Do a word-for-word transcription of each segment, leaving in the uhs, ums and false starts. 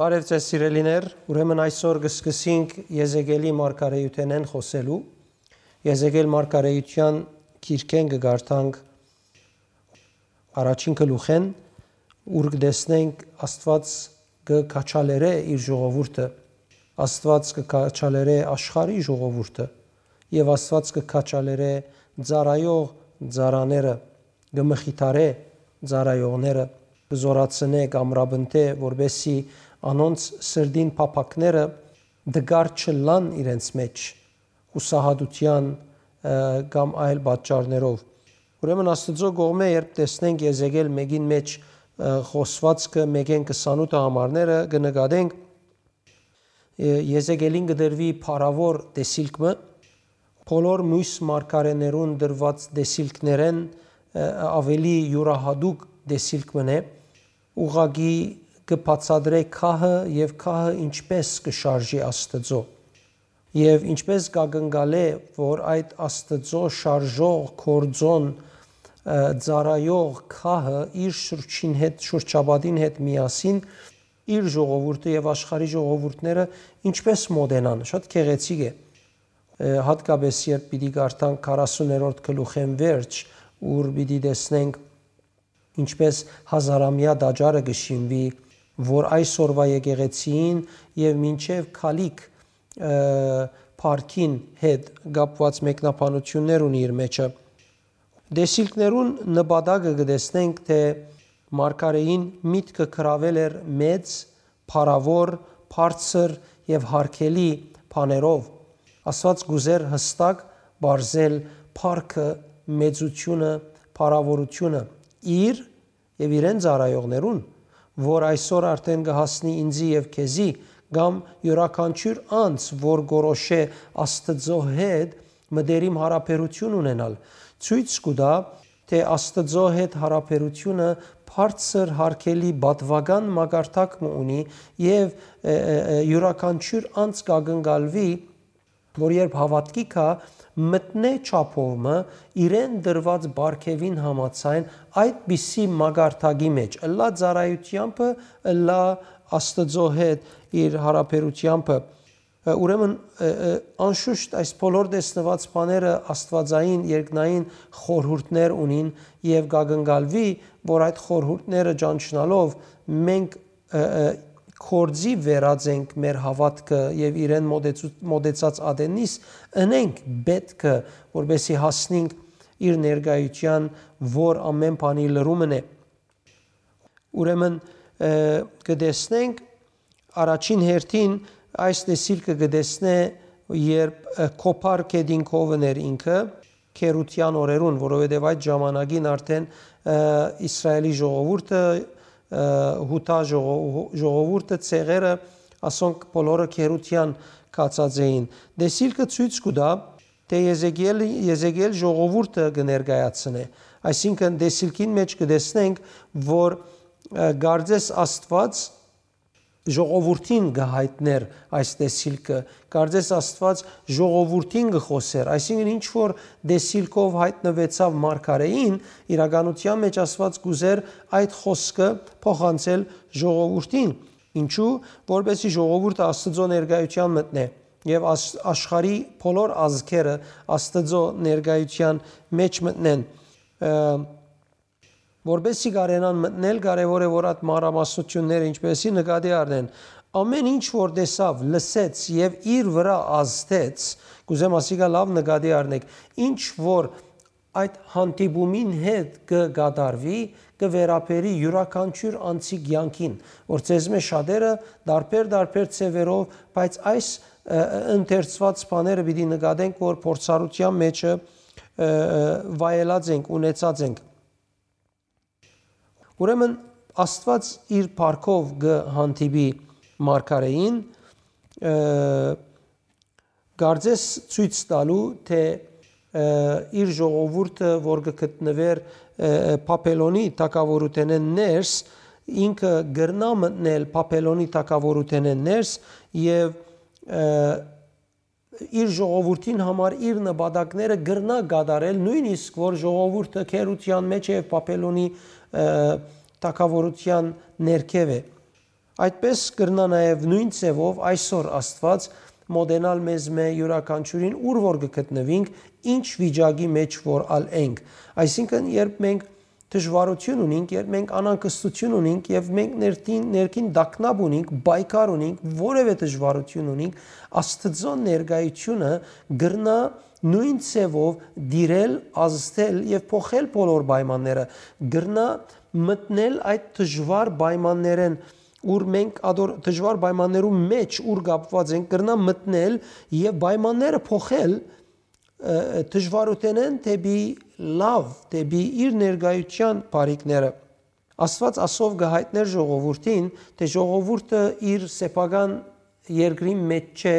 Բարև ձեզ, սիրելիներ, ուրեմն այսօր կը սկսենք Եզեկիելի մարգարեութենէն խօսելու։ Եզեկիել մարգարեութեան գիրքէն կը կարդանք առաջին գլուխէն, ուր կը տեսնենք Աստուած կը քաջալերէ իր ժողովուրդը, Աստուած կը քաջալերէ աշխարհի ժողովուրդը եւ Աստուած կը քաջալերէ ծառայող ծառաները, կը մխիթարէ ծառայողները, կը զօրացնէ, կ'ամրապնդէ, որպէսզի անոնց սրտին փափաքները տկար չըլլան իրենց մէջ, յուսահատութեան, ը, կամ այլ պատճառներով։ Ուրեմն Աստուծոյ կողմէ, երբ տեսնենք Եզեկիել մէկին մէջ, ը, խօսուածքը մէկէն քսանութ համարները, կը նկատենք, ը, Եզեկիելին կը տրուի փառաւոր տեսիլք մը, բոլոր միւս մարգարէներուն տրուած տեսիլքներէն, ը, աւելի իւրահատուկ տեսիլք մըն է, ուղղակի կը բացատրէ քահը եւ քահը ինչպէս կը շարժի Աստուծոյ։ Եւ ինչպէս կ'ակնկալէ, որ այդ Աստուծոյ շարժող, գործօն, ը, ծառայող քահը իր շուրջին հետ, շուրջապատին հետ միասին իր ժողովուրդը եւ աշխարհի ժողովուրդները ինչպէս մօտենան, շատ գեղեցիկ է։ Ը, հատկապես երբ պիտի կարդանք քառասուներորդ գլուխէն վերջ, ուր պիտի տեսնենք ինչպէս հազարամեայ տաճարը կը շինուի, որ այսօրուայ եկեղեցիին եւ մինչեւ քալիք, ը, փառքին հետ կապուած մեկնաբանութիւններ ունի իր մէջը։ Տեսիլքներուն նպատակը կը տեսնենք, թէ մարգարէին միտքը գրաւել էր մեծ, փառաւոր, բարձր եւ յարգելի բաներով։ Աստուած կ'ուզէր յստակ պարզել փառքը, մեծութիւնը, փառաւորութիւնը իր եւ իրեն ծառայողներուն, որ այսօր արդէն կը հասնի ինծի եւ քեզի, կամ իւրաքանչիւր անձ, որ կորոշէ Աստուծոյ հետ մտերիմ յարաբերութիւն ունենալ, ցոյց կու տայ, թէ Աստուծոյ հետ յարաբերութիւնը բարձր յարգելի պատուական մակարդակ մը ունի եւ, ը, ը, ը, իւրաքանչիւր անձ կ'ակնկալուի, որ երբ հաւատքի գայ, մտնէ չափով մը իրեն տրուած պարգեւին համաձայն այդպիսի մակարդակի մէջ, ըլլայ ծառայութեամբը, ըլլայ Աստուծոյ հետ իր յարաբերութեամբը։ Ուրեմն, ը, ը, անշուշտ այս բոլոր տեսնուած բաները աստուածային, երկնային խորհուրդներ ունին եւ կ'ակնկալուի, որ այդ խորհուրդները ճանչնալով մենք, ը, ը, գործի վերած ենք մեր հաւատքը եւ իրեն մոտեցու-, մոտեցած ատեննիս ընենք պէտքը, որպէսզի հասնենք իր ներկայութեան, որ ամէն բանի լրումն է։ Ուրեմն, ը, կը տեսնենք, առաջին հերթին այս տեսիլքը կը տեսնէ, երբ, ը, Քոփար գետին քովն էր ինքը, քերութեան օրերուն, որովհետեւ այդ ժամանակին արդէն, ը, Իսրայէլի ժողովուրդը, ը, Յուդա ժողո-, ժողովուրդը, ցեղերը, ասոնք բոլորը քերութեան գացած էին։ Տեսիլքը ցոյց կու տայ, թէ Եզեկիել, Եզեկիել ժողովուրդը կը ներկայացնէ։ Այսինքն, տեսիլքին մէջ կը տեսնենք, որ, ը, կարծես Աստուած ժողովուրդին կը յայտնէր այս տեսիլքը, կարծես Աստուած ժողովուրդին կը խօսէր, այսինքն, ինչ որ տեսիլքով յայտնուեցաւ մարգարէին, իրականութեան մէջ Աստուած կ'ուզէր այդ խօսքը փոխանցել ժողովուրդին։ Ինչու՞, որպէսզի ժողովուրդը Աստուծոյ ներկայութեան մտնէ եւ աշ-, աշխարհի բոլոր ազգերը Աստուծոյ ներկայութեան մէջ մտնեն։ Ը, որպէսզի կարենան մտնել, կարեւոր է, որ այդ մանրամասնութիւնները ինչպէսի նկատի առնեն։ Ամէն ինչ որ տեսաւ, լսեց եւ իր վրայ ազդեց, կ'ուզեմ ասիկա լաւ նկատի առնեք, ինչ որ այդ հանդիպումին հետ կը կատարուի, կը վերաբերի իւրաքանչիւր անձի կեանքին, որ ձեզմէ շատերը տարբեր-տարբեր ձեւերով, բայց այս, ը, ը, ընթերցուած բաները պիտի նկատենք, որ փորձառութեան մէջը, ը, ը, վայելած ենք, ունեցած ենք։ Ուրեմն Աստուած իր փառքով կը հանդիպի մարգարէին, ը, կարծես ցոյց տալու, թէ, ը, իր ժողովուրդը, որ կը գտնուէր, ը, Բաբելոնի թագաւորութենէն ներս, ինքը կրնայ մտնել Բաբելոնի թագաւորութենէն ներս եւ, ը, իր ժողովուրդին համար իր նպատակները կրնայ կատարել, նոյնիսկ որ ժողովուրդը քերութեան մէջ է եւ Բաբելոնի, ը, թագաւորութեան ներքեւ է։ Այդպէս կրնայ նաեւ նոյն ձեւով այսօր Աստուած մօտենալ մեզմէ յուրաքանչիւրին, ուր որ կը գտնուինք, ինչ վիճակի մէջ որ ալ ենք։ Այսինքն, երբ մենք դժուարութիւն ունինք, երբ մենք անհանգստութիւն ունինք եւ մենք ներքին, ներքին տագնապ ունինք, պայքար ունինք, որեւէ դժուարութիւն ունինք, Աստուծոյ ներկայութիւնը կրնայ նոյն ձեւով տիրել, ազդել եւ փոխել բոլոր պայմանները, կրնայ մտնել այդ դժուար պայմաններէն, ուր մենք ադոր դժուար պայմաններու մէջ ուր կապուած ենք, կրնայ մտնել եւ պայմանները փոխել, ը, դժուարութենէն դէպի լաւ, դէպի իր ներկայութեան բարիքները։ Աստուած ասով կը յայտնէր ժողովուրդին, թէ ժողովուրդը իր սեփական երկրին մէջ չէ,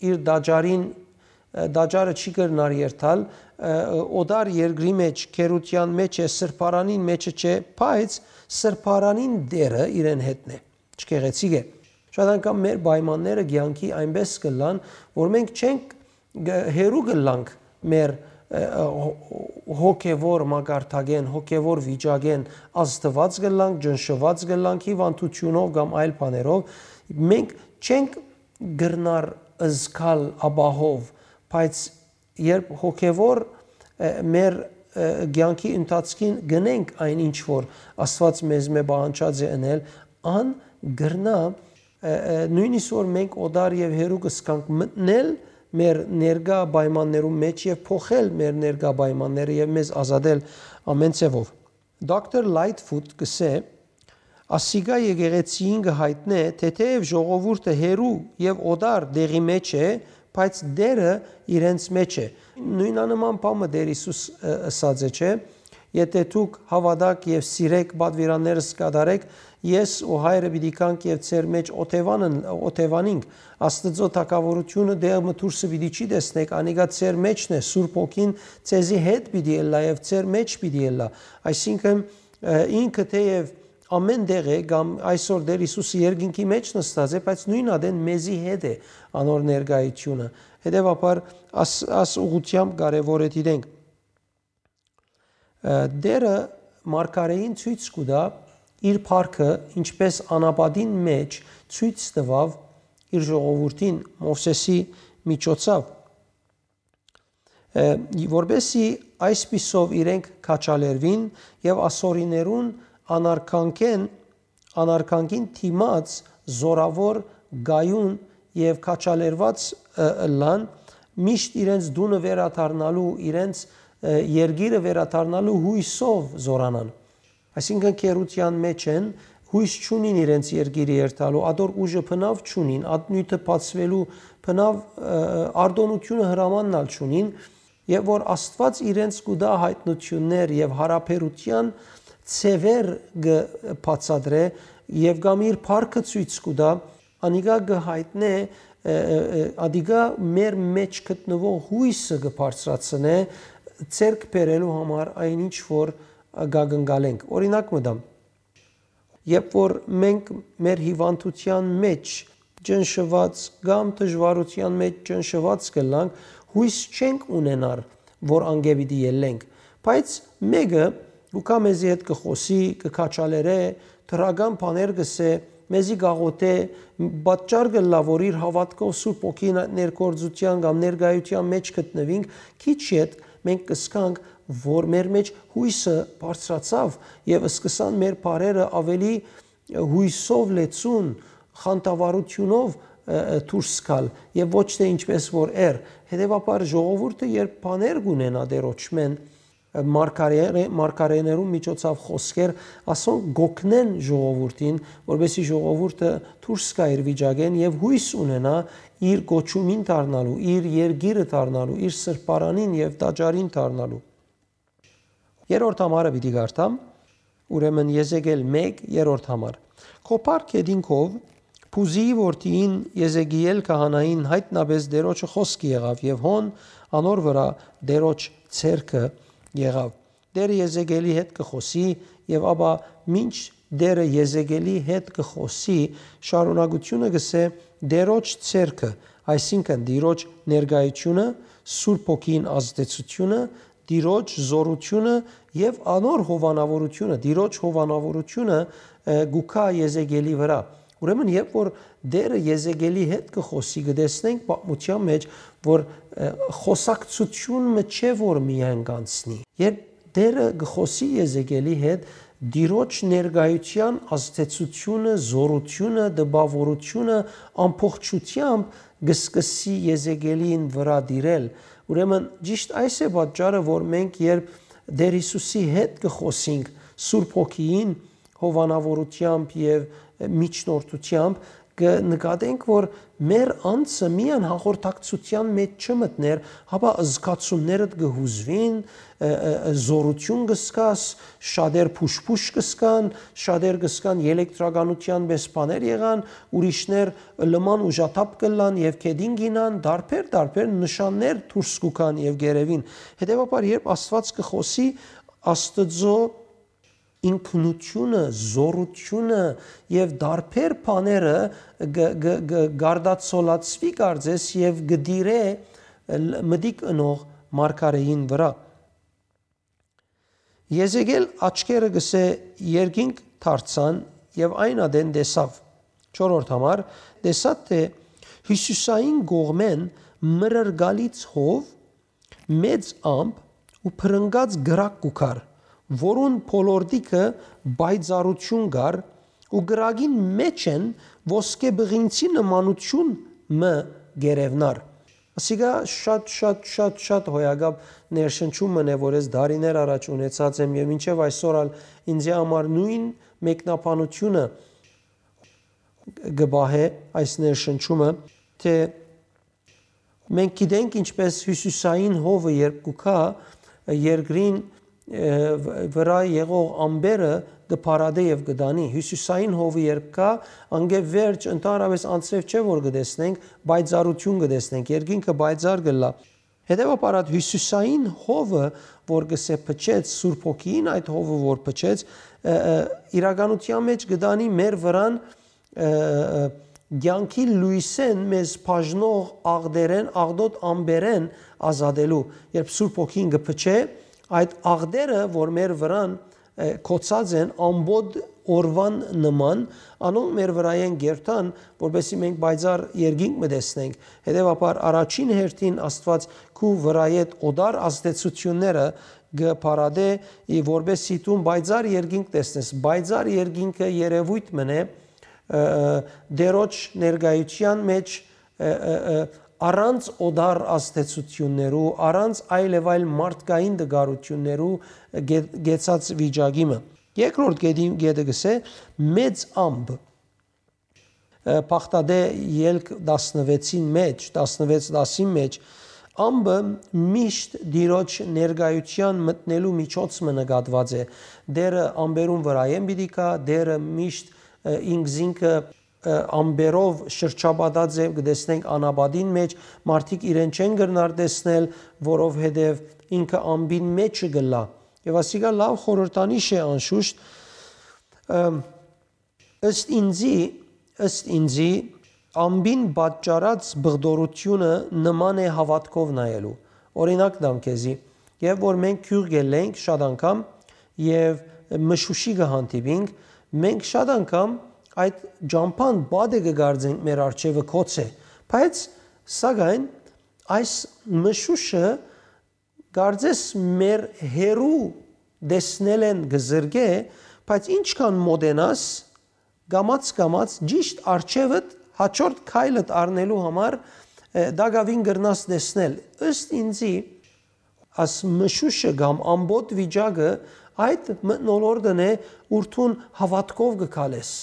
իր տաճարին, ը, տաճարը չի կրնար երթալ, ը, օտար երկրի մէջ, գերութեան մէջ է, սրբարանին մէջը չէ, բայց սրբարանին Տէրը իրեն հետն է։ Չգեղեցիկ է։ Շատ անգամ մեր պայմանները կեանքի այնպէս կ'ըլլան, որ մենք չենք գ-, հեռու կ'ըլլանք մեր, ը, ը, հո-, հոգեվոր մակարդակէն, հոգեվոր վիճակէն, ազդուած կ'ըլլանք, ճնշուած կ'ըլլանք հիւանդութիւնով կամ այլ բաներով, մենք չենք կրնար զգալ ապահով, բայց երբ հոգեվոր, ը, մեր, ը, կեանքի ընթացքին գնենք այն ինչ որ Աստուած մեզմէ պահանջած է ընել, ան կրնայ, ը, ը, նոյնիսկ որ մենք օտար եւ հեռու կ'ըսկանք, մտնել մեր ներկայ պայմաններու մէջ եւ փոխել մեր ներկայ պայմանները եւ մեզ ազատել ամէն ձեւով։ Դոկտոր Լայթֆուտ կ'ըսէ, ասիկա եկեղեցիին կը յայտնէ, թէ թէեւ ժողովուրդը հեռու եւ օտար տեղի մէջ է, բայց Տէրը իրենց մէջ է։ Նոյնանման բան մը Տէր Յիսուս, ը, ըսած է, չէ՞։ Եթէ դուք հաւատաք եւ սիրեք, պատուիրաններս կատարեք, ես ու Հայրը պիտի գանք եւ ձեր մէջ օթեւանն-, օթեւանինք։ Աստուծոյ թագաւորութիւնը տեղ մը դուրսը պիտի չի տեսնեք, անիկա ձեր մէջն է, Սուրբ Հոգին ձեզի հետ պիտի ըլլայ եւ ձեր մէջ պիտի ըլլայ։ Այսինքն, ը, ինքը թէեւ ամէն տեղ է, կամ այսօր Տէր Յիսուսը երկինքի մէջ նստած է, բայց նոյն ատեն մեզի հետ է անոր ներկայութիւնը։ Հետեւաբար, աս, աս ուղղութեամբ կարեւոր է դիտենք։ Ը, Տէրը մարգարէին ցոյց կու տայ իր փառքը, ինչպէս անապատին մէջ ցոյց տուաւ իր ժողովուրդին Մովսէսի միջոցով, ը, որպէսզի այսպիսով իրենք քաջալերուին եւ ասորիներուն անարգանքէն, անարգանքին դիմաց զօրաւոր կայուն եւ քաջալերուած, ը, ըլլան, միշտ իրենց տունը վերադառնալու, իրենց, ը, երկիրը վերադառնալու յոյսով զօրանան։ Այսինքն՝ գերութեան մէջ են, յոյս չունին իրենց երկիրը երթալու, ատոր ուժը բնաւ չունին, ատնոյթը բացուելու բնաւ, ը, արտօնութիւնը հրամանն ալ չունին, եւ որ Աստուած իրենց կու տայ յայտնութիւններ եւ յարաբերութեան ձեւեր կը բացատրէ եւ կամ իր փառքը ցոյց կու տայ, անիկա կը յայտնէ, ը, ը, ը, ադիկա մեր մէջ գտնուող յոյսը կը բարձրացնէ, ձեռք բերելու համար այն ինչ որ կակնկալենք։ Օրինակ մը տամ, երբ որ մենք մեր հիւանդութեան մէջ ճնշուած կամ դժուարութեան մէջ ճնշուած կ'ըլլանք, յոյս չենք ունենար, որ անկէ պիտի ելլենք։ Բայց մէկը կու գայ մեզի հետ կը խօսի, կը քաջալերէ, դրական բաներ կ'ըսէ, մեզի կ'աղօթէ, պատճառ կ'ըլլայ, որ իր հաւատքով Սուրբ Հոգին այդ ներգործութեան կամ ներկայութեան մէջ գտնուինք, քիչ յետ մենք կ'զգանք, որ մեր մէջ յոյսը բարձրացաւ եւ սկսան մեր բառերը աւելի յոյսով լեցուն, խանդավառութիւնով, ը, ը, դուրս գալ եւ ոչ թէ ինչպես որ էր։ Հետեւաբար ժողովուրդը երբ բաներ կ'ունենայ Տէրոջմէն, ը, մարգարե-, մարգարեներուն միջոցով խօսքեր, ասոնք կ'օգնեն ժողովուրդին, որպեսզի ժողովուրդը դուրս գայ իր վիճակէն եւ յոյս ունենայ իր կոչումին դառնալու, իր երկիրը դառնալու, իր սրբարանին եւ տաճարին դառնալու։ Երրորդ համարը պիտի կարդամ, ուրեմն Եզեկիել մէկ, երրորդ համար։ Քո փառ գետին քով Բուզիի որդիին Եզեկիել քահանային յայտնապէս Տէրոջը խօսքը եղաւ եւ հոն անոր վրայ Տէրոջ ձեռքը եղաւ։ Տէրը Եզեկիելի հետ կը խօսի եւ ապա մինչ Տէրը Եզեկիելի հետ կը խօսի, շարունակութիւնը կ'ըսէ Տէրոջ ձեռքը, այսինքն Տիրոջ ներկայութիւնը, Սուրբ Հոգին ազդեցութիւնը, Տիրոջ զօրութիւնը եւ անոր հովանաւորութիւնը, Տիրոջ հովանաւորութիւնը, ը, կու գայ Եզեկիելի վրայ, Ուրեմն, երբ որ Տէրը Եզեկէլի հետ կը խօսի, կը տեսնենք պատմութեան մէջ, որ, ը, խօսակցութիւն մը չէ, որ միայն կ'անցնի։ Երբ Տէրը կը խօսի Եզեկէլի հետ, Տիրոջ ներկայութեան ազդեցութիւնը, զօրութիւնը, տպաւորութիւնը ամբողջութեամբ կը սկսի Եզեկէլին վրայ տիրել։ Ուրեմն, ճիշդ այս է պատճառը, որ մենք, երբ Տէր Յիսուսի հետ կը խօսինք Սուրբ Հոգիին, հովանաւորութեամբ եւ միջնորդութեամբ, կը նկատենք, որ մեր անձը միայն հաղորդակցութեան մէջ չմտներ, հապա զգացումներդ կը յուզուին, ը, ը, ը, զօրութիւն կը զգաս, շատեր փուշ-փուշ կը զգան, շատեր կը զգան ելեկտրականութեան պէս բաներ եղան, ուրիշներ լման ուժաթափ կ'ըլլան եւ քեդին կ'ինան, տարբեր, տարբեր նշաններ դուրս կու գան եւ կ'երեւին։ Հետեւաբար, երբ Աստուած կը խօսի, Աստուծոյ ինքնութիւնը, զօրութիւնը եւ տարբեր բաները կը, կը, կը գարդացոլացուի կարծես եւ կը տիրէ լ-, մտիկ ընող մարգարէին վրայ։ Եզեկէլ աչքերը, կ'ըսէ, երկինք դարձան եւ այն ատեն տեսաւ։ Չորրորդ համար, տեսաւ թէ հիւսիսային կողմէն մրրկալից հով, մեծ ամպ ու փրնկած կրակ կու գար, որուն բոլորտիքը պայծառութիւն կար ու կրակին մէջ են ոսկե բղինցի նմանութիւն մը կ'երեւնար։ Ասիկա շատ, շատ, շատ, շատ հոյակապ ներշնչում մը է, որ ես դարիներ առաջ ունեցած եմ եւ մինչեւ այսօր ալ ինձի համար նոյն մեկնաբանութիւնը կը պահէ այս ներշնչումը, թէ մենք գիտենք ինչպէս հիւսիսային հովը երբ կու գայ, երկրին, ը, վ-, վրայ եղող ամպերը կը փարատէ եւ կը տանի։ Հիւսիսային հովը երբ գայ, անկէ վերջ, ընդհանրապէս անձրեւ չէ որ կը տեսնենք, պայծառութիւն կը տեսնենք, երկինքը պայծառ կ'ըլլայ։ Հետեւաբար, այդ հիւսիսային հովը, որ կ'ըսէ փչեց, Սուրբ Հոգիին այդ հովը որ փչեց, ը, ը, իրականութեան մէջ կը տանի մեր վրան, ը, ը, կեանքի լոյսէն մեզ բաժնող աղտերէն, աղտոտ ամպերէն ազատելու։ Երբ Սուրբ Հոգին կը փչէ, այդ աղտերը, որ մեր վրան, ը, կոչած են ամբողջ օրուան նման, անոնք մեր վրայէն կ'երթան, որպեսզի մենք պայծառ երկինք մը տեսնենք։ Հետեւաբար, առաջին հերթին Աստուած քու վրայէդ օտար ազդեցութիւնները կը փարատէ, ի որպեսզի դուն պայծառ երկինք տեսնես։ Պայծառ երկինքը երեւոյթ մը է, ը, ը, Տիրոջ ներկայութեան մէջ, ը, ը, ը, առանց օտար ազդեցութիւններու, առանց այլ եւ այլ մարդկային տկարութիւններու գե-, գեցած վիճակի մը։ Երկրորդ գետին, գետը կ'ըսէ, մեծ ամպ, ը, Բաղդադէ ելք տասնվեցին մէջ, տասնվեց տասին մէջ, ամպը միշտ Տիրոջ ներկայութեան մտնելու միջոց մը նկատուած է։ Տիրը ամպերուն վրայէն պիտի գայ, Տիրը միշտ, ը, ինքզինքը, ը, ամպերով շրջապատած է, կը տեսնենք անապատին մէջ, մարդիկ իրեն չեն կրնար տեսնել, որովհետեւ ինքը ամպին մէջը կ'ըլլայ։ Եւ ասիկա լաւ խորհրդանիշ է անշուշտ, ը, ըստ ինձի, ըստ ինձի, ամպին պատճառած բղդորութիւնը նման է հաւատքով նայելու։ Օրինակ տամ քեզի, երբ որ մենք գիւղ գելլենք շատ անգամ եւ մշուշի կը հանդիպինք, մենք շատ անգամ այդ ճամբան պատը կը կարծենք մեր առջեւը գոց է, բայց սակայն այս մշուշը կարծես մեր հեռու տեսնելէն կը զրկէ, բայց ինչքան մոտենաս, կամաց-կամաց ճիշտ առջեւդ հաջորդ քայլդ առնելու համար, ը, տակաւին կրնաս տեսնել։ Ըստ ինձի, աս մշուշը կամ ամբողջ վիճակը այդ մթնոլորտն է, ուր դուն հաւատքով կը քալես։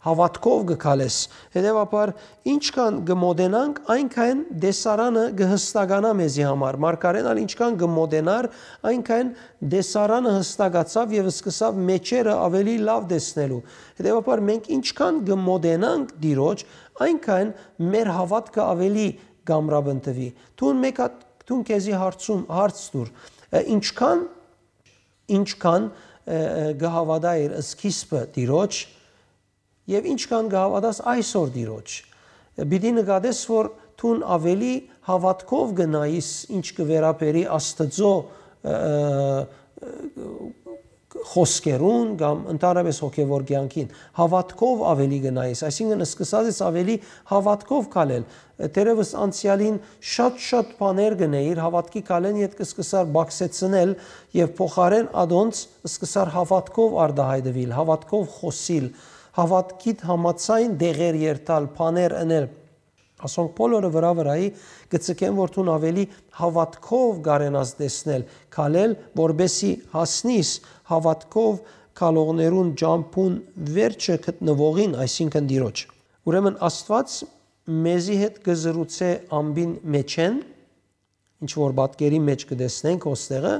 Հաւատքով կը քալես։ Հետեւաբար, ինչքան կը մոտենանք, այնքան տեսարանը կը հստականայ մեզի համար։ Մարգարէն ալ ինչքան կը մոտենար, այնքան տեսարանը հստակացաւ եւ սկսաւ մէջերը աւելի լաւ տեսնելու։ Հետեւաբար, մենք ինչքան կը մոտենանք Տիրոջ, այնքան մեր հաւատքը աւելի կ'ամրապնդուի։ Դուն մեկ հատ, դուն քեզի հարցում, հարց տուր, ը, ինչքան, ինչքան, ը, ը, կը հաւատայիր սկիզբը Տիրոջ, եւ ինչքան կը հաւատաս այսօր Տիրոջ, պիտի նկատես, որ դուն աւելի հաւատքով կը նայիս, ինչ կը վերաբերի Աստուծոյ, ը, ը, խօսքերուն կամ ընդհանրապէս հոգեւոր կեանքին։ Հաւատքով աւելի կը նայես, այսինքն սկսած ես աւելի հաւատքով քալել։ Դերևս անցեալին շատ-շատ բաներ կ'ընէիր, հաւատքի քալէն ետք սկսար բակսեցնել եւ փոխարէն ադոնց սկսար հաւատքով արտայայտուիլ, հաւատքով խօսիլ, հաւատքիդ համաձայն դեղեր երթալ, բաներ ընել։ Ասոնք բոլորը վրայ վրայի կը ձգեն, որ դուն աւելի հաւատքով կարենաս տեսնել, քալել, որպէսզի հասնիս հաւատքով քալողներուն ճամբուն վերջը գտնուողին, այսինքն Տիրոջ։ Ուրեմն Աստուած մեզի հետ կը զրուցէ ամբին մէջէն, ինչ որ պատկերի մէջ կը տեսնենք ոստեղը,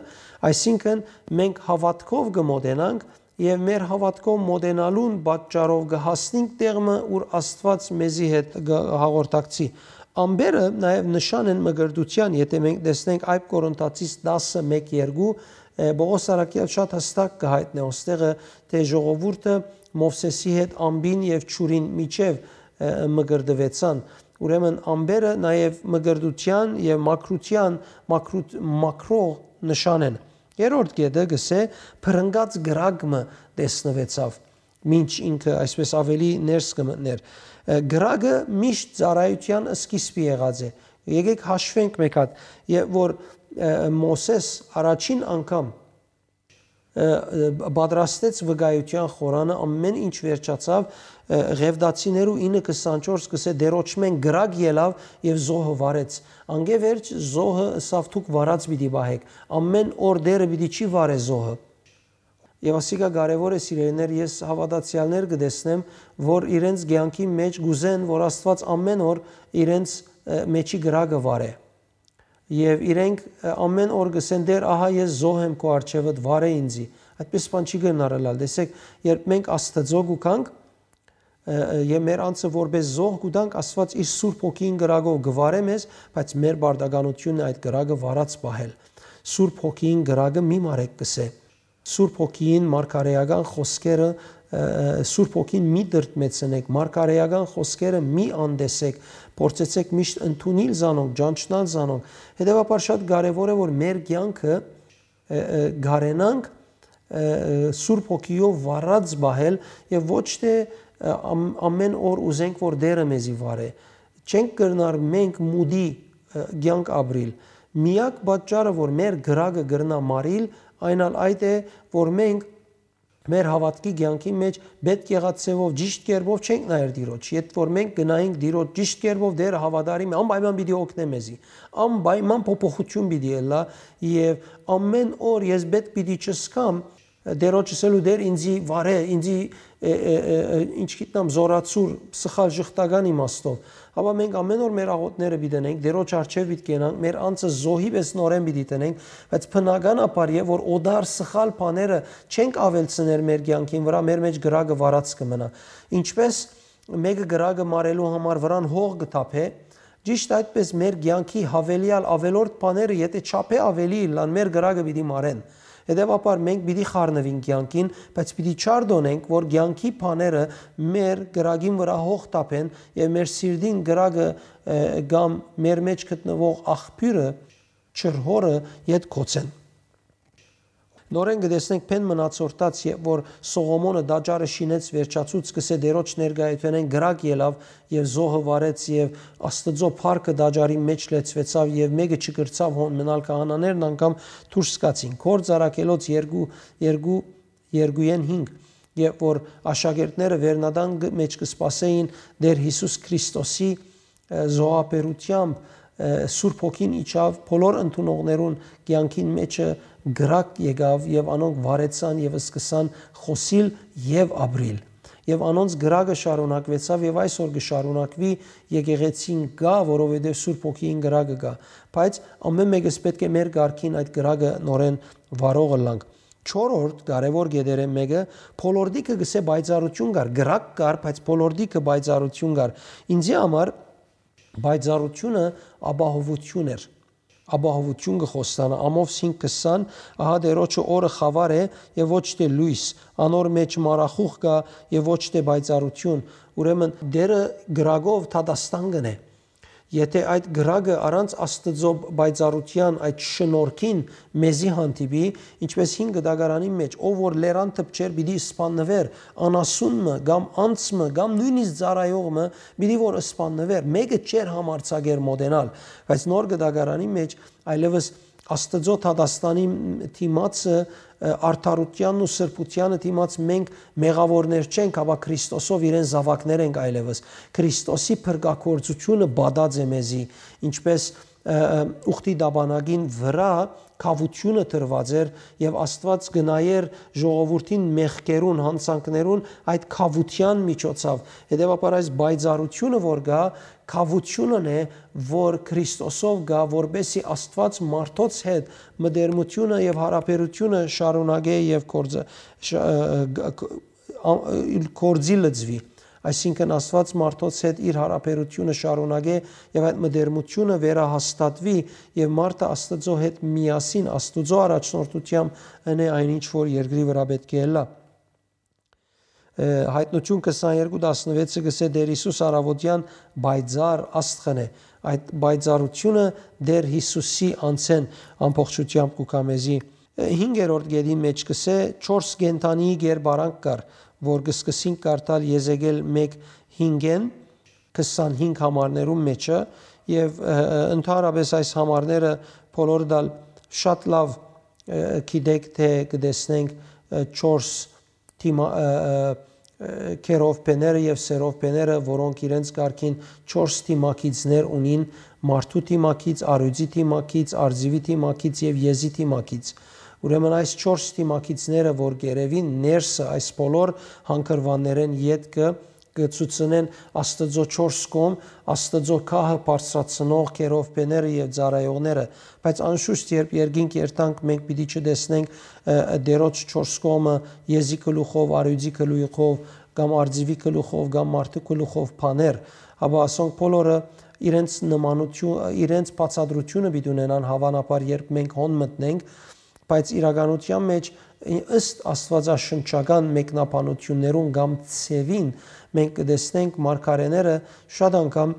այսինքն մենք հաւատքով կը մոտենանք եւ մեր հաւատքով մոտենալուն պատճառով կը հասնենք տեղ մը, ուր Աստուած մեզի հետ կը հաղորդակցի։ Ամպերը նաեւ նշան են մկրտութեան, եթէ մենք տեսնենք Այդ Կորինթացիս տասը մէկ երկու, Պողոս Առաքյալ շատ հստակ կը հայտնէ ոստեղը, թէ ժողովուրդը Մովսէսի հետ ամպին եւ ջուրին միջեւ մկրտուեցան։ Ուրեմն ամպերը նաեւ մկրտութեան եւ մաքրութեան մաքրութ-, մաքրող նշան են։ Երրորդ կետը կ'ըսէ, փրնկած կրակ մը տեսնուեցաւ, մինչ ինքը այսպես աւելի ներս կը մտնէր։ Կրակը միշտ ծառայութեան սկիզբը եղած է։ Եկեք հաշվենք մէկ հատ, եւ որ Մովսէս առաջին անգամ պատրաստեց վկայութեան խորանը, ամեն ինչ վերջացաւ, Ղեւտացիներու ինը քսանչորս կ'ըսէ, Տէրոջմէն կրակ ելաւ եւ զոհը վառեց։ Անկէ վերջ զոհը ըսաւ, դուք վառած պիտի պահէք, ամեն օր Տէրը պիտի չի վառէ զոհը։ Եւ ասիկա կարեւոր է, սիրելիներ, ես հաւատացեալներ կը տեսնեմ, որ իրենց կեանքի մէջ կ'ուզեն, որ Աստուած ամեն օր իրենց մեջի կրակը վառէ։ Եւ իրենք ամեն օր կ'ըսեն, Տէր, ահա ես զոհ եմ քու առջեւդ, վառէ ինծի։ Այդպես բան չի կրնար ըլլալ։ Տեսեք, երբ մենք Աստծո կու գանք, եւ մեր անձը որպես զոհ կու տանք, Աստուած իր Սուրբ Հոգիին կրակով կը վառէ մեզ, բայց մեր պարտականությունն է այդ կրակը վառած պահել։ Սուրբ Հոգիին կրակը մի մարեք, կ'ըսէ։ Սուրբ Հոգիին մարգարէական խօսքերը, Սուրբ Հոգին մի դրդմեցնեք, մարգարէական խօսքերը մի անտեսեք, փորձեցեք միշտ ընդունիլ զանոնք, ճանչնալ զանոնք։ Հետեւաբար շատ կարեւոր է, որ մեր կեանքը կարենանք Սուրբ Հոգիով վառած պահել եւ ոչ թէ ամեն օր ուզենք, որ Տէրը մեզի վառէ։ Չենք կրնար մենք մուտի կեանք ապրիլ։ Միակ պատճառը, որ մեր կրակը կրնայ մարիլ, այն ալ այդ է, որ մենք մեր հաւատքի կեանքի մէջ պէտք եղած ձեւով, ճիշդ կերպով չենք նայեր Տիրոջ։ Եթ որ մենք գնայինք Տիրոջ ճիշդ կերպով, Տէրը հաւատարիմ է, անպայման պիտի օգնէ մեզի, անպայման փոփոխություն պիտի ըլլայ եւ ամեն օր ես պէտք պիտի չզգամ Տիրոջ ըսելու, Տէր, ինծի վառէ, ինծի, ինչ գիտեմ, զորացուր, սխալ, ժխտական իմաստով։ Հապա մենք ամեն օր մեր աղօթքները պիտի ընենք, Տիրոջ առջեւ պիտի կենանք, մեր անձը զոհի պէս նորէն պիտի տնենք, բայց բնականաբար է, որ օտար սխալ բաները չենք աւելցներ մեր կեանքին վրայ, մեր մէջ կրակը վառած կը մնայ։ Ինչպէս մէկը կրակը մարելու համար վրան հող կը թափէ, ճիշդ այդպէս մեր կեանքի յաւելեալ, աւելորդ բաները, եթէ չափէ աւելի ըլլան, մեր կրակը պիտի մարեն։ Հետեւաբար մենք պիտի խառնուինք կեանքին, բայց պիտի չարտօնենք, որ կեանքի բաները մեր կրակին վրայ հող թափեն եւ մեր սիրտին կրակը, ը, կամ մեր մէջ գտնուող աղբիւրը, ջրհորը, ետ գոցեն։ Նորէն կը տեսնենք բեն մնացորդաց, երբ որ Սողոմոնը տաճարը շինեց, վերջացուց, կ'ըսէ, Տիրոջ ներկայութենէն կրակ ելաւ եւ զոհը վառեց, եւ Աստուծոյ փառքը տաճարի մէջ լեցուեցաւ, եւ մէկը չկրցաւ հոն մնալ, քահանաներն անգամ դուրս գացին։ Գործ Առաքելոց երկու, երկու, երկուեն հինգ, երբ որ աշակերտները վերնատան գ-, մէջ կը սպասէին Տէր Յիսուս Քրիստոսի, ը, զոհաբերությամբ, ը, Սուրբ Հոգին իջաւ, բոլոր ընդունողներուն կեանքին մէջը կրակ եկաւ, եւ անոնք վառեցան եւ սկսան խօսիլ եւ ապրիլ։ Եւ անոնց կրակը շարունակուեցաւ եւ այսօր կը շարունակուի, եկեղեցին կայ, որովհետեւ Սուրբ Հոգիին կրակը կայ։ Բայց ամեն մէկս պէտք է մեր կարգին այդ կրակը նորէն վառող ըլլանք։ Չորրորդ կարեւոր կետերէն մէկը, բոլորտիքը կ'ըսէ պայծառութիւն կար, կրակ կար, բայց բոլորտիքը պայծառութիւն կար։ Ինձի համար պայծառութիւնը ապահովութիւն էր։ Ապահովութիւն կը խոստանայ, Ամովս հինգ քսան, ահա Տիրոջը օրը խաւար է եւ ոչ թէ լոյս, անոր մէջ մառախուղ կայ եւ ոչ թէ պայծառութիւն։ Ուրեմն Տէրը կրակով դատաստան կ'ընէ։ Եթէ այդ կրակը առանց Աստուծոյ պայծառութեան, այդ շնորհքին մեզի հանդիպի, ինչպէս հին կտակարանին մէջ, ով որ լերան դպչէր, պիտի սպաննուէր, անասուն մը, կամ անձ մը, կամ նոյնիսկ ծառայող մը, պիտի որ սպաննուէր, մէկը չէր համարձակեր մօտենալ, բայց նոր կտակարանին մէջ այլեւս Աստուծոյ դատաստանի դիմացը, ը, արդարութեանն ու սրբութեանը դիմաց մենք մեղաւորներ չենք, հապա Քրիստոսով իրեն զաւակներ ենք այլեւս։ Քրիստոսի փրկագործությունը պատած է մեզի, ինչպէս, ը, ը, ուխտի դաբանագին վրայ քաւութիւնը դրուած էր եւ Աստուած կը նայէր ժողովուրդին մեղքերուն, յանցանքներուն այդ քաւութեան միջոցաւ։ Հետեւաբար այս պայծառութիւնը որ կայ, քաւութիւնն է, որ Քրիստոսով կայ, որպէսզի Աստուած մարդոց հետ մտերմութիւնը եւ յարաբերութիւնը շարունակէ եւ գործը, շ-, ը, ը, ը, ա-, ը, գործի լծուի։ Այսինքն Աստուած մարդոց հետ իր յարաբերութիւնը շարունակէ եւ այդ մտերմութիւնը վերահաստատուի եւ մարդը Աստուծոյ հետ միասին, Աստուծոյ առաջնորդութեամբ ընէ այն ինչ որ երկրի վրայ պէտք է ըլլայ։ Ը, Յայտնութիւն քսաներկու տասնուեցը կ'ըսէ. «Տէր Յիսուս առաւօտեան պայծառ աստղն է»։ Այդ պայծառութիւնը Տէր Յիսուսի անձէն ամբողջութեամբ կու գայ մեզի։ Ը, հինգերորդ կետին մէջ կ'ըսէ. «Չորս կենդանիի կերպարանք կար, որ կը սկսինք կարդալ Եզեկել մէկ հինգէն քսանհինգ համարներուն մէջը եւ, ը, ը, ընդհանրապէս այս համարները բոլորդ ալ շատ լաւ, ը, գիտէք թէ կը տեսնենք, ը, չորս դիմա-, ը, ը, ը, քերովբեները եւ սերովբեները, որոնք իրենց կարգին չորս դիմագիծներ ունին, մարդու դիմագիծ, առիւծի դիմագիծ, արծիւի դիմագիծ եւ եզի դիմագիծ։ Ուրեմն այս չորս դիմագիծները, որ կ'երեւին ներսը, այս բոլոր հանգրուաններէն ետքը կը ցուցնեն Աստուծոյ չորս կողմ, Աստուծոյ գահը բարձրացնող քերովբեները եւ ծառայողները, բայց անշուշտ երբ երկինք երթանք, մենք պիտի չտեսնենք, ը, ը, Տէրոջ չորս կողմը եզի գլուխով, առիւծի գլուխով, կամ արծիւի գլուխով, կամ մարդու գլուխով բաներ, հապա ասոնք բոլորը իրենց նմանություն, իրենց բացատրությունը պիտի ունենան, հաւանաբար երբ մենք հոն մտնենք, բայց իրականության մէջ, ըստ աստուածաշնչական մեկնաբանություններուն կամ ձեւին, մենք կը տեսնենք մարգարէները շատ անգամ,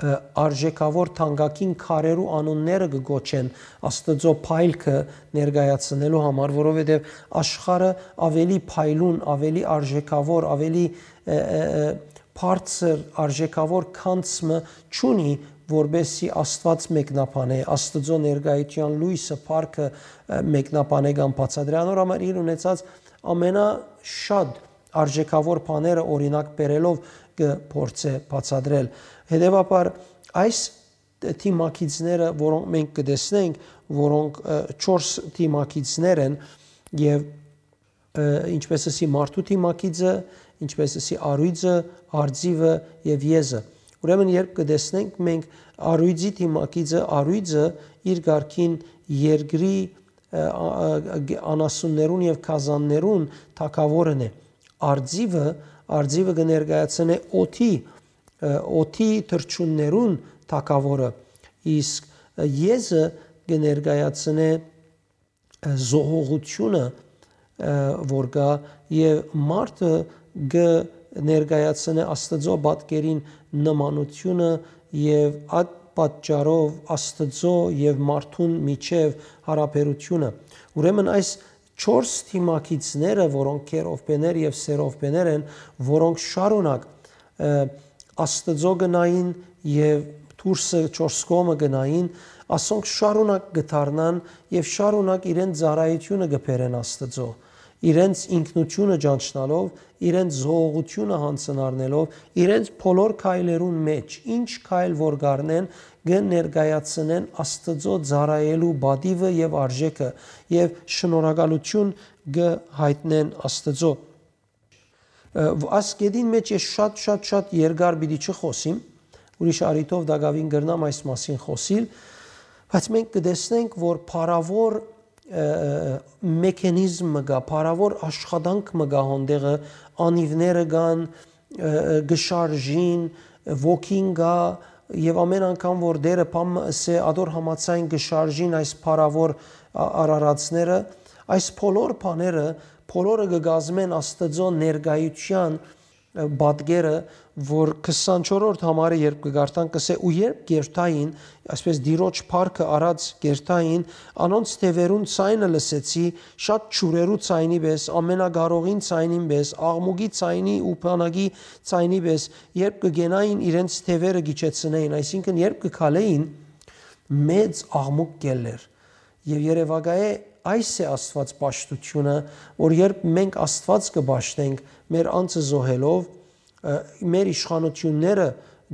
ը, արժեքաւոր թանկագին քարերու անունները կը կոչեն Աստուծոյ փայլքը ներկայացնելու համար, որովհետեւ աշխարհը ավելի փայլուն, ավելի արժեքաւոր, ավելի, ը, ը, ը, բարձր արժեքաւոր գանձ մը չունի, որպէսզի Աստուած մեկնաբանէ, Աստուծոյ ներկայութեան լոյսը, փառքը, ը, մեկնաբանէ կամ բացատրէ։ Անոր համար իր ունեցած ամենաշատ արժեքաւոր բաները օրինակ բերելով կը փորձէ բացատրել։ Հետեւաբար այս դիմագիծները, որոնք մենք կը տեսնենք, որոնք, ը, չորս դիմագիծներ են եւ, ը, ինչպես ասի, մարդու դիմագիծը, ինչպես ասի, առիւծը, արծիւը եւ եզը։ Ուրեմն երբ կը տեսնենք մենք առիւծի դիմագիծը, առիւծը իր կարգին երկրի, ը, ա-, ա-, ա-, անասուններուն եւ գազաններուն թագաւորն է։ Արծիւը, արծիւը կը ներկայացնէ օդի, ը, օդի թռչուններուն թագաւորը, իսկ, ը, եզը կը ներկայացնէ, ը, զոհողությունը, ը, որ կայ, եւ մարդը կը ներկայացնէ Աստուծոյ պատկերին նմանությունը եւ այդ պատճառով Աստուծոյ եւ մարդուն միջեւ յարաբերությունը։ Ուրեմն այս չորս դիմագիծները, որոնք քերովբեներ եւ սերովբեներ են, որոնք շարունակ, ը, Աստուծոյ կը նային եւ դուրսը չորս կողմը կը նային, ասոնք շարունակ կը դառնան եւ շարունակ իրենց ծառայությունը կը բերեն Աստուծոյ, իրենց ինքնությունը ճանչնալով, իրենց զոհողությունը յանձնառնելով, իրենց բոլոր քայլերուն մէջ, ինչ քայլ որ կ'առնեն, կը ներկայացնեն Աստուծոյ ծառայելու պատիվը եւ արժեքը եւ շնորհակալութիւն կը յայտնեն Աստուծոյ։ Ը, վ-, աս կետին մէջ ես շատ, շատ, շատ երկար պիտի չխօսիմ, ուրիշ առիթով տակաւին կրնամ այս մասին խօսիլ, բայց մենք կը տեսնենք, որ փառաւոր, ը, մեխանիզմ մը կայ, փառաւոր աշխատանք մը կայ հոն տեղը, անիւները կան, ը, ը, կը շարժին, ոգին կայ, եւ ամեն անգամ որ Տէրը բան մը ըսէ, ադոր համաձայն կը շարժին այս փառաւոր ա-, արարածները, այս բոլոր բաները, բոլորը կը կազմեն Աստուծոյ ներկայութեան ը, պատկերը, որ քսանչորրորդ համարը երբ կը կարդան, կսէ. «Ու երբ կերթային, այսպես Տիրոջ փառքը առած կերթային, անոնց թեւերուն ցայնը լսեցի, շատ ջուրերու ցայնի պէս, ամենակարողին ցայնին պէս, աղմուկի ցայնի ու բանակի ցայնի պէս, երբ կը գենային իրենց թեւերը գիչեցնեին», այսինքն երբ կը քալէին, մեծ աղմուկ կ'ելլէր։ Եւ երեւակայէ այս է Աստուած պաշտութիւնը, որ երբ մենք Աստուած կը պաշտենք, մեր անձը զոհելով, ը, մեր իշխանութիւնները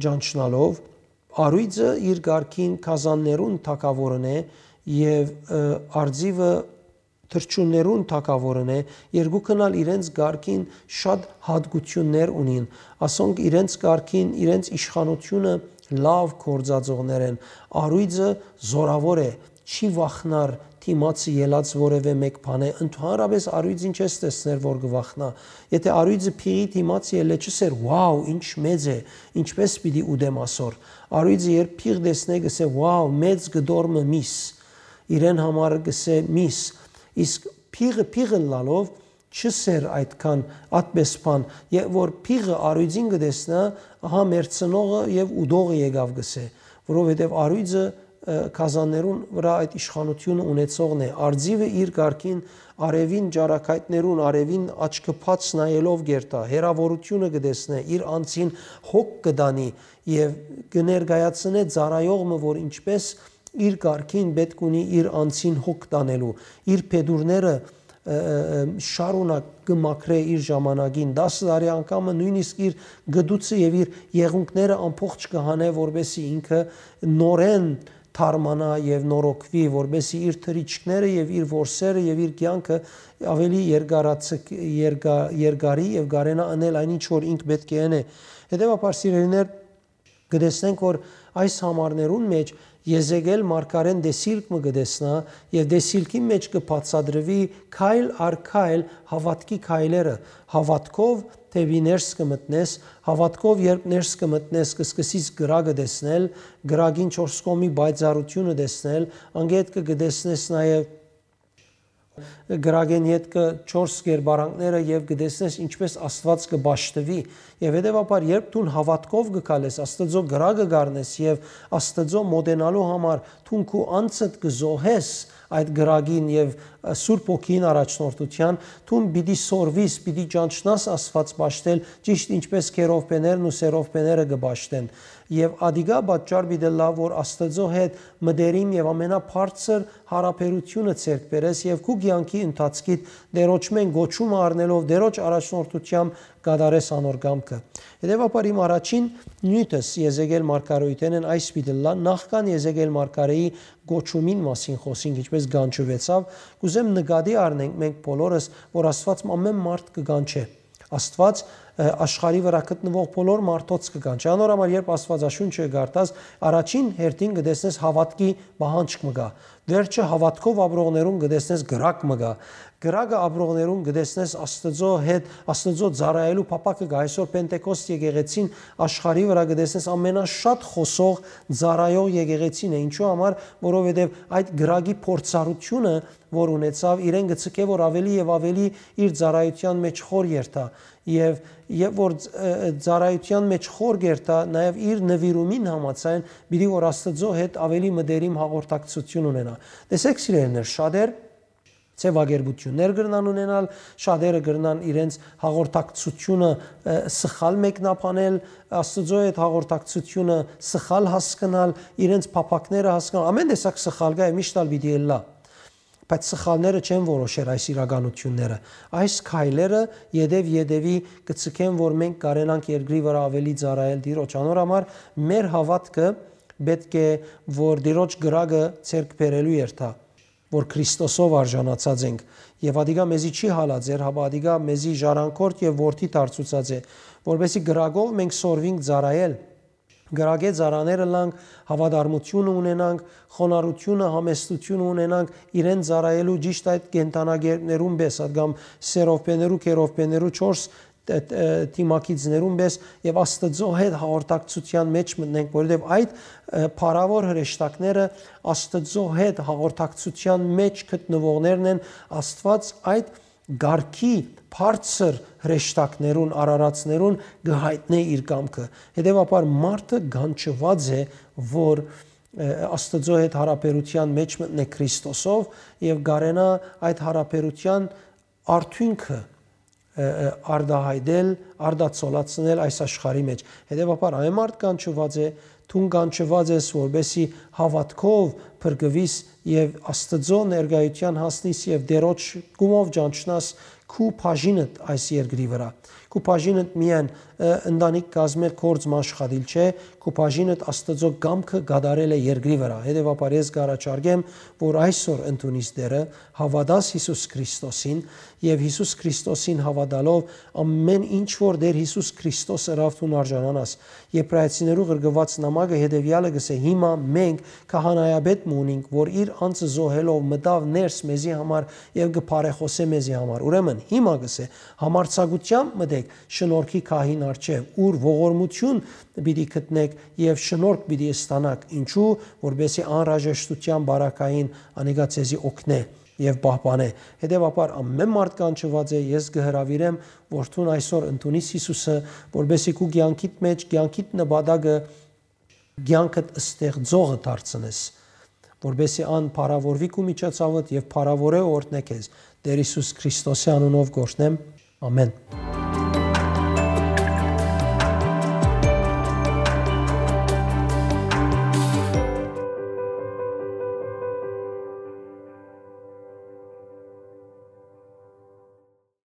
ճանչնալով, առոյծը իր կարգին գազաններուն թագաւորն է եւ, ը, արծիվը թռչուններուն թագաւորն է, երկուքն ալ իրենց կարգին շատ յատկութիւններ ունին։ Ասոնք իրենց կարգին, իրենց իշխանութիւնը լաւ գործածողներ են։ Առոյծը զորաւոր է, չի վախնար դիմացը ելած որեւէ մէկ բանէ։ Ընդհանրապէս առոյծ ինչ ես տեսներ, որ կը վախնայ։ Եթե առոյծը փիղի դիմաց ելլէ, չ'ըսեր. «Wow, ինչ մեծ է, ինչպէս պիտի ուտեմ ասոր»։ Առոյծը երբ փիղ տեսնէ, կ'ըսէ. «Wow, մեծ կտոր մը միս»։ Իրեն համար կ'ըսէ միս։ Իսկ փիղը փիղ ըլլալով, չ'ըսեր այդքան ատպէս բան, եւ որ փիղը առոյծին կը տեսնայ, ահա մեռցնողը եւ ուտողը եկաւ, կ'ըսէ, որովհետեւ առոյծը, ը, գազաններուն վրայ այդ իշխանութիւնը ունեցողն է։ Արծիվը իր կարգին արեւին ճառագայթներուն, արեւին աչքը բաց նայելով կերթայ, հեռաւորութիւնը կը տեսնէ, իր անձին հոգ կը տանի եւ կը ներկայացնէ ծառայող մը, որ ինչպէս իր կարգին պէտք ունի իր անձին հոգ տանելու, իր փետուրները, ը, ը, ը, շարունակ կը մաքրէ իր ժամանակին, տասը տարի անգամը նոյնիսկ իր գդուցը եւ իր եղունգները ամբողջ կը հանէ, որպէսզի ինքը նորէն թարմանայ եւ նորոգուի, որպէսզի իր թռիչքները եւ իր որսերը եւ իր կեանքը աւելի երկարացք-, երկա-, երկարի եւ կարենայ ընել այն ինչ որ ինք պէտք է ընէ։ Հետեւաբար, սիրելիներ, կը տեսնենք, որ այս համարներուն մէջ Եզեկիէլ մարգարէն տեսիլք մը կը տեսնայ եւ տեսիլքին մէջ կը բացատրուի քայլ առ քայլ հաւատքի քայլերը։ Հաւատքով դէպի ներս կը մտնես, հաւատքով երբ ներս կը մտնես, կը սկսես կրակը տեսնել, կրակին չորս կողմի պայծառութիւնը տեսնել, անկէ ետքը կը տեսնես նաեւ կրակէն ետքը չորս կերպարանքները եւ կը տեսնես ինչպէս Աստուած կը պաշտուի։ Եւ հետեւաբար, երբ դուն հաւատքով կը քալես, Աստուծոյ կրակը կ'առնես եւ Աստուծոյ մօտենալու համար դուն քու անձդ կը զոհես այդ կրակին եւ, ը, Սուրբ Հոգիին առաջնորդութեան, դուն պիտի սորվիս, պիտի ճանչնաս Աստուած պաշտել, ճիշդ ինչպէս քերովբեներն ու սերովբեները կը պաշտեն։ Եւ ադիկա պատճառ պիտի ըլլայ, որ Աստուծոյ հետ մտերիմ եւ ամենաբարձր յարաբերութիւնը ձեռք բերես եւ քու կեանքի ընթացքիդ Տէրոջմէն կոչումը առնելով Տէրոջ առաջնորդութեամբ կատարես անոր կամքը։ Հետեւաբար իմ առաջին նիւթս Եզեկիէլ մարգարէութենէն այս պիտի ըլլայ, նախքան Եզեկիէլ մարգարէի կոչումին մասին խօսինք, ինչպէս կանչուեցաւ, կ'ուզեմ նկատի առնենք մենք բոլորս, որ Աստուած ամէն մարդ կը կանչէ։ Աստուած, ը, աշխարհի վրայ գտնուող բոլոր մարդոց կը կանչէ։ Անոր համար, երբ Աստուածաշունչը կը կարդաս, առաջին հերթին կը տեսնես հաւատքի պահանջք մը կայ։ Վերջը հաւատքով ապրողներուն կը տեսնես կրակ մը կայ։ Կրակը ապրողներուն կը տեսնես Աստուծոյ հետ, Աստուծոյ ծառայելու փափաքը կայ։ Այսօր Պենտեկոստ եկեղեցին աշխարհի վրայ կը տեսնես ամենաշատ խօսող, ծառայող եկեղեցին է։ Ինչու համար, որովհետեւ այդ կրակի փորձառութիւնը, որ ունեցաւ, իրեն կը ցկէ, որ աւելի եւ աւելի իր ծառայութեան մէջ խոր երթայ։ Եւ, եւ որ, ը, ը, ծառայութեան մէջ խոր կերթայ, նաեւ իր նուիրումին համաձայն, պիտի որ Աստուծոյ հետ աւելի մտերիմ հաղորդակցութիւն ունենայ։ Տեսեք, սիրելիներ, շատեր ձեւակերպութիւններ կրնան ունենալ, շատերը կրնան իրենց հաղորդակցությունը, ը, սխալ մեկնաբանել, Աստուծոյ հետ հաղորդակցությունը սխալ հասկնալ, իրենց փափաքները հասկնալ, ամէն տեսակ սխալ կայ եւ միշտ ալ պիտի ըլլայ։ Բայց սխալները չեն որոշեր այս իրականութիւնները։ Այս քայլերը ետեւ-ետեւի կը ցկեն, որ մենք կարենանք երկրի վրայ աւելի ծառայել Տիրոջ։ Անոր համար մեր հաւատքը պէտք է, որ Տիրոջ կրակը ձեռք բերելու երթայ, որ Քրիստոսով արժանացած ենք։ Եւ ադիկա մեզի չի հալածեր, հապա ադիկա մեզի ժառանգորդ եւ որդի դարձուցած է, որպեսզի կրակով մենք սորվինք ծառայել, կրակէ ծառաները ըլլանք, հաւատարմութիւնը ունենանք, խոնարհութիւնը, համեստութիւնը ունենանք իրեն ծառայելու, ճիշդ այդ կենդանագերբներուն պէս, ա, կամ սերովբեներու, քերովբեներու չորս, ը, ը, դիմագիծներուն պէս եւ Աստուծոյ հետ հաղորդակցութեան մէջ մտնենք, որովհետեւ այդ, ը, փառաւոր հրեշտակները Աստուծոյ հետ հաղորդակցութեան մէջ գտնուողներն են, Աստուած այդ կարգի բարձր հրեշտակներուն, արարածներուն կը յայտնէ իր կամքը։ Հետեւաբար մարդը կանչուած է, որ, ը, Աստուծոյ հետ յարաբերութեան մէջ մտնէ Քրիստոսով եւ կարենայ այդ յարաբերութեան արդիւնքը, ը, ը, արտայայտել, արտացոլացնել այս աշխարհի մէջ։ Հետեւաբար այն մարդ կանչուած է, դուն կանչուած ես, որպեսզի հաւատքով փրկուիս եւ Աստուծոյ ներկայութեան հասնիս եւ Տէրոջ կամքով ճանչնաս քու բաժինդ այս երկրի վրայ։ Քու բաժինդ միայն, ը, ընտանիք կազմել, գործ մը աշխատիլ չէ, քու բաժինդ Աստուծոյ կամքը կատարել է երկրի վրայ։ Հետեւաբար ես կ'առաջարկեմ, որ այսօր ընդունիս Տէրը, հաւատաս Յիսուս Քրիստոսին եւ Յիսուս Քրիստոսին հաւատալով ամէն ինչ որ Տէր Յիսուս Քրիստոս ըրաւ դուն արժանանաս։ Եբրայեցիներու ղրկուած նամակը հետեւեալը կ'ըսէ. «Հիմա մենք քահանայապետ մը ունինք, որ իր անձը զոհելով մտաւ ներս մեզի համար եւ կը բարեխօսէ մեզի համար»։ Ուրեմն հիմա կ'ըսէ. «Համարձակութեամբ մտէք շնորհքի քահին առջեւ, ուր ողորմութիւն պիտի գտնէք եւ շնորհք պիտի ստանաք, ինչու, որպեսզի անհրաժեշտութեան բարակային անիկա ձեզի օգնէ եւ պահպանէ»։ Հետեւաբար ամէն մարդ կանչուած է, ես կը հրաւիրեմ, որ դուն այսօր ընդունիս Յիսուսը, որպեսզի քու կեանքիդ մէջ, կեանքիդ նպատակը, կեանքդ ստեղծողը դարձնես, որպեսզի ան փառաւորուի քու միջոցովդ եւ փառաւորէ օրհնէ քեզ։ Տէր Յիսուս Քրիստոսի անունով կ'օրհնեմ։ Ամէն։